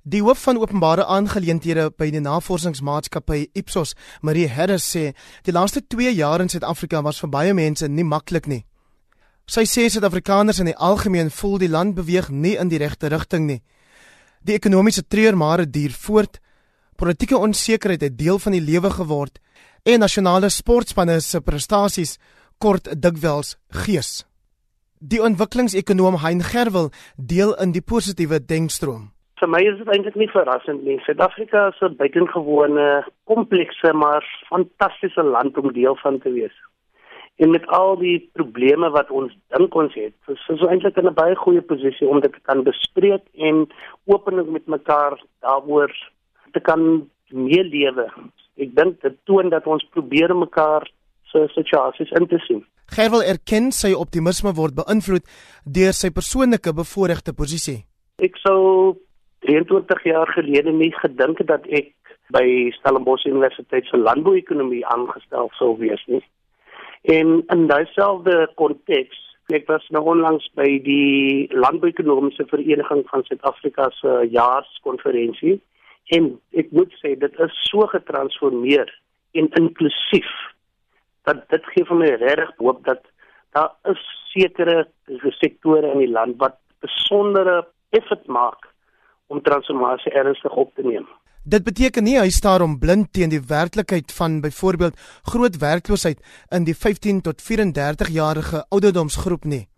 Die hoof van openbare aangeleenthede by die navorsingsmaatskappy Ipsos, Marie Harris, sê die laaste 2 jaar in Suid-Afrika was vir baie mense nie maklik nie. Sy sê Suid-Afrikaners in die algemeen voel die land beweeg nie in die regte rigting nie. Die ekonomiese treurmare duur voort, politieke onsekerheid het deel van die lewe geword en nasionale sportspanne se prestasies kort dikwels gees. Die ontwikkelingsekonoom Hein Gerwel deel in die positiewe denkstroom. Vir my is dit eintlik nie verrassend nie. Suid-Afrika is 'n buitengewone, komplekse maar fantastiese land om deel van te wees. En met al die probleme wat ons dink ons het, is ons eintlik in 'n baie goeie posisie om dit te kan bespreek en openlik met mekaar daaroor te kan meelewe. Ek dink dit toon dat ons probeer mekaar se situasies in te sien. Gerwel erken sy optimisme word beïnvloed deur sy persoonlike bevoordeelde posisie. Ek sou 23 jaar gelede nie gedink het dat ek by Stellenbosch Universiteit se landbouekonomie aangestel sou wees nie. En in dieselfde konteks, ek was nou onlangs by die Landbouekonomiese Vereniging van Suid-Afrika se jaarskonferensie en ek moet sê dit is so getransformeer en inklusief dat dit gee vir my regtig hoop dat daar is sekere sektore in die land wat besondere effort maak om transformasie ernstig op te neem. Dit beteken nie hy staar om blind teen die werklikheid van byvoorbeeld groot werkloosheid in die 15 tot 34-jarige ouderdomsgroep nie.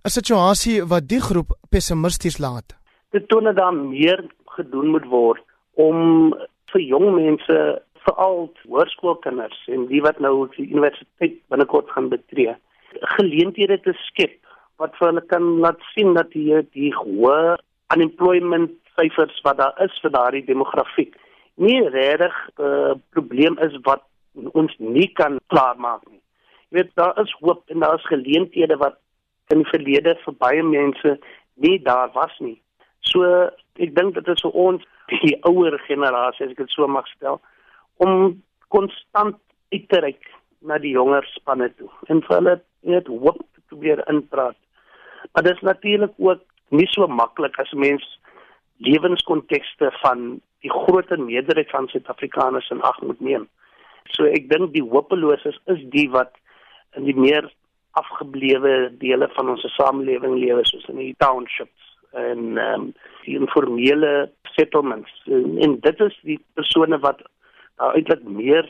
'n Situasie wat die groep pessimisties laat. Dit toon dat daar meer gedoen moet word om vir jong mense, veral hoërskoolkinders en die wat nou die universiteit binnekort gaan betree, geleenthede te skep wat vir hulle kan laat sien dat die hoë unemployment syfers wat daar is vir daardie demografiek nie regtig 'n probleem is wat ons nie kan klaarmaak nie. Jy weet, daar is hoop en daar is geleenthede wat in die verlede vir baie mense nie daar was nie. So ek dink dit is vir ons die ouer generasie, as ek dit so mag stel, om konstant uit te reik na die jonger spanne toe en vir hulle net hoop te probeer inpraat. Maar dit is natuurlik ook nie so maklik as mens lewenskontekste van die groter meerderheid van Suid-Afrikaners in ag moet neem. So ek dink die hopeloses is die wat in die meer afgeblewe dele van ons samelewing lewe, soos in die townships en die informele settlements. En dit is die persone wat eintlik meer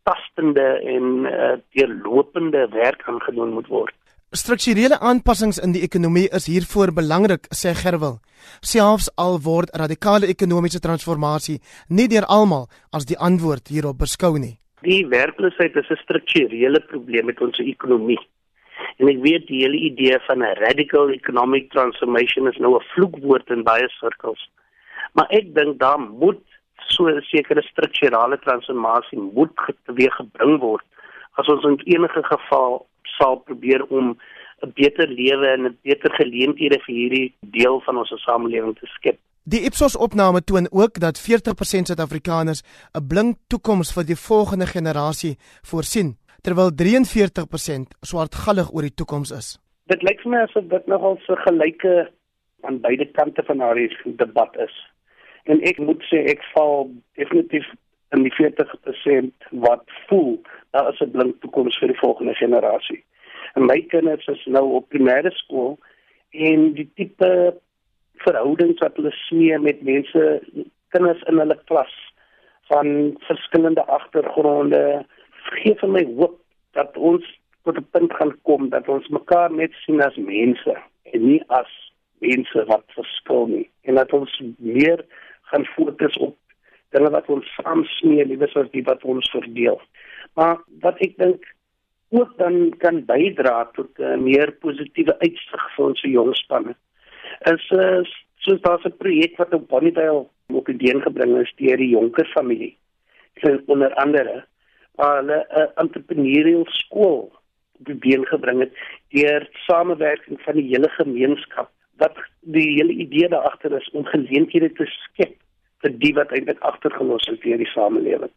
tastende en deurlopende werk aangedoen moet word. Strukturele aanpassings in die ekonomie is hiervoor belangrik, sê Gerwel. Selfs al word radikale ekonomiese transformasie nie deur almal as die antwoord hierop beskou nie. Die werkloosheid is 'n strukturele probleem met ons ekonomie. En ek weet die hele idee van 'n radical economic transformation is nou 'n vloekwoord in baie sirkels. Maar ek dink daar moet so 'n sekere strukturele transformasie moet teweeggebring word as ons in enige geval sal probeer om 'n beter lewe en 'n beter geleenthede vir hierdie deel van ons samelewing te skep. Die Ipsos-opname toon ook dat 40% Suid-Afrikaners 'n blink toekoms vir die volgende generasie voorsien, terwyl 43% swartgallig oor die toekoms is. Dit lyk vir my asof dit nogal so gelyke aan beide kante van daardie debat is. En ek moet sê ek val definitief in die 40% wat voel daar is 'n blink toekoms vir die volgende generasie. En my kinders is nou op primêre skool en die tipe verhoudings wat hulle smee met mense, kinders in hulle klas van verskillende agtergronde, gee vir my hoop dat ons tot 'n punt gaan kom dat ons mekaar net sien as mense en nie as mense wat verskil nie. En dat ons meer gaan fokus op dinge wat ons saam smee, liewer as die wat ons verdeel. Maar wat ek dink ook dan kan bydra tot 'n meer positiewe uitsig vir ons jong spanne is soos daar's 'n projek wat op Bonnievale op idee gebring is deur die Jonker familie. Onder andere waar hulle 'n entrepreneurial skool op idee gebring het deur samewerking van die hele gemeenskap. Wat die hele idee daar agter is om geleenthede te skep vir die wat eintlik agtergelos is deur die samelewing.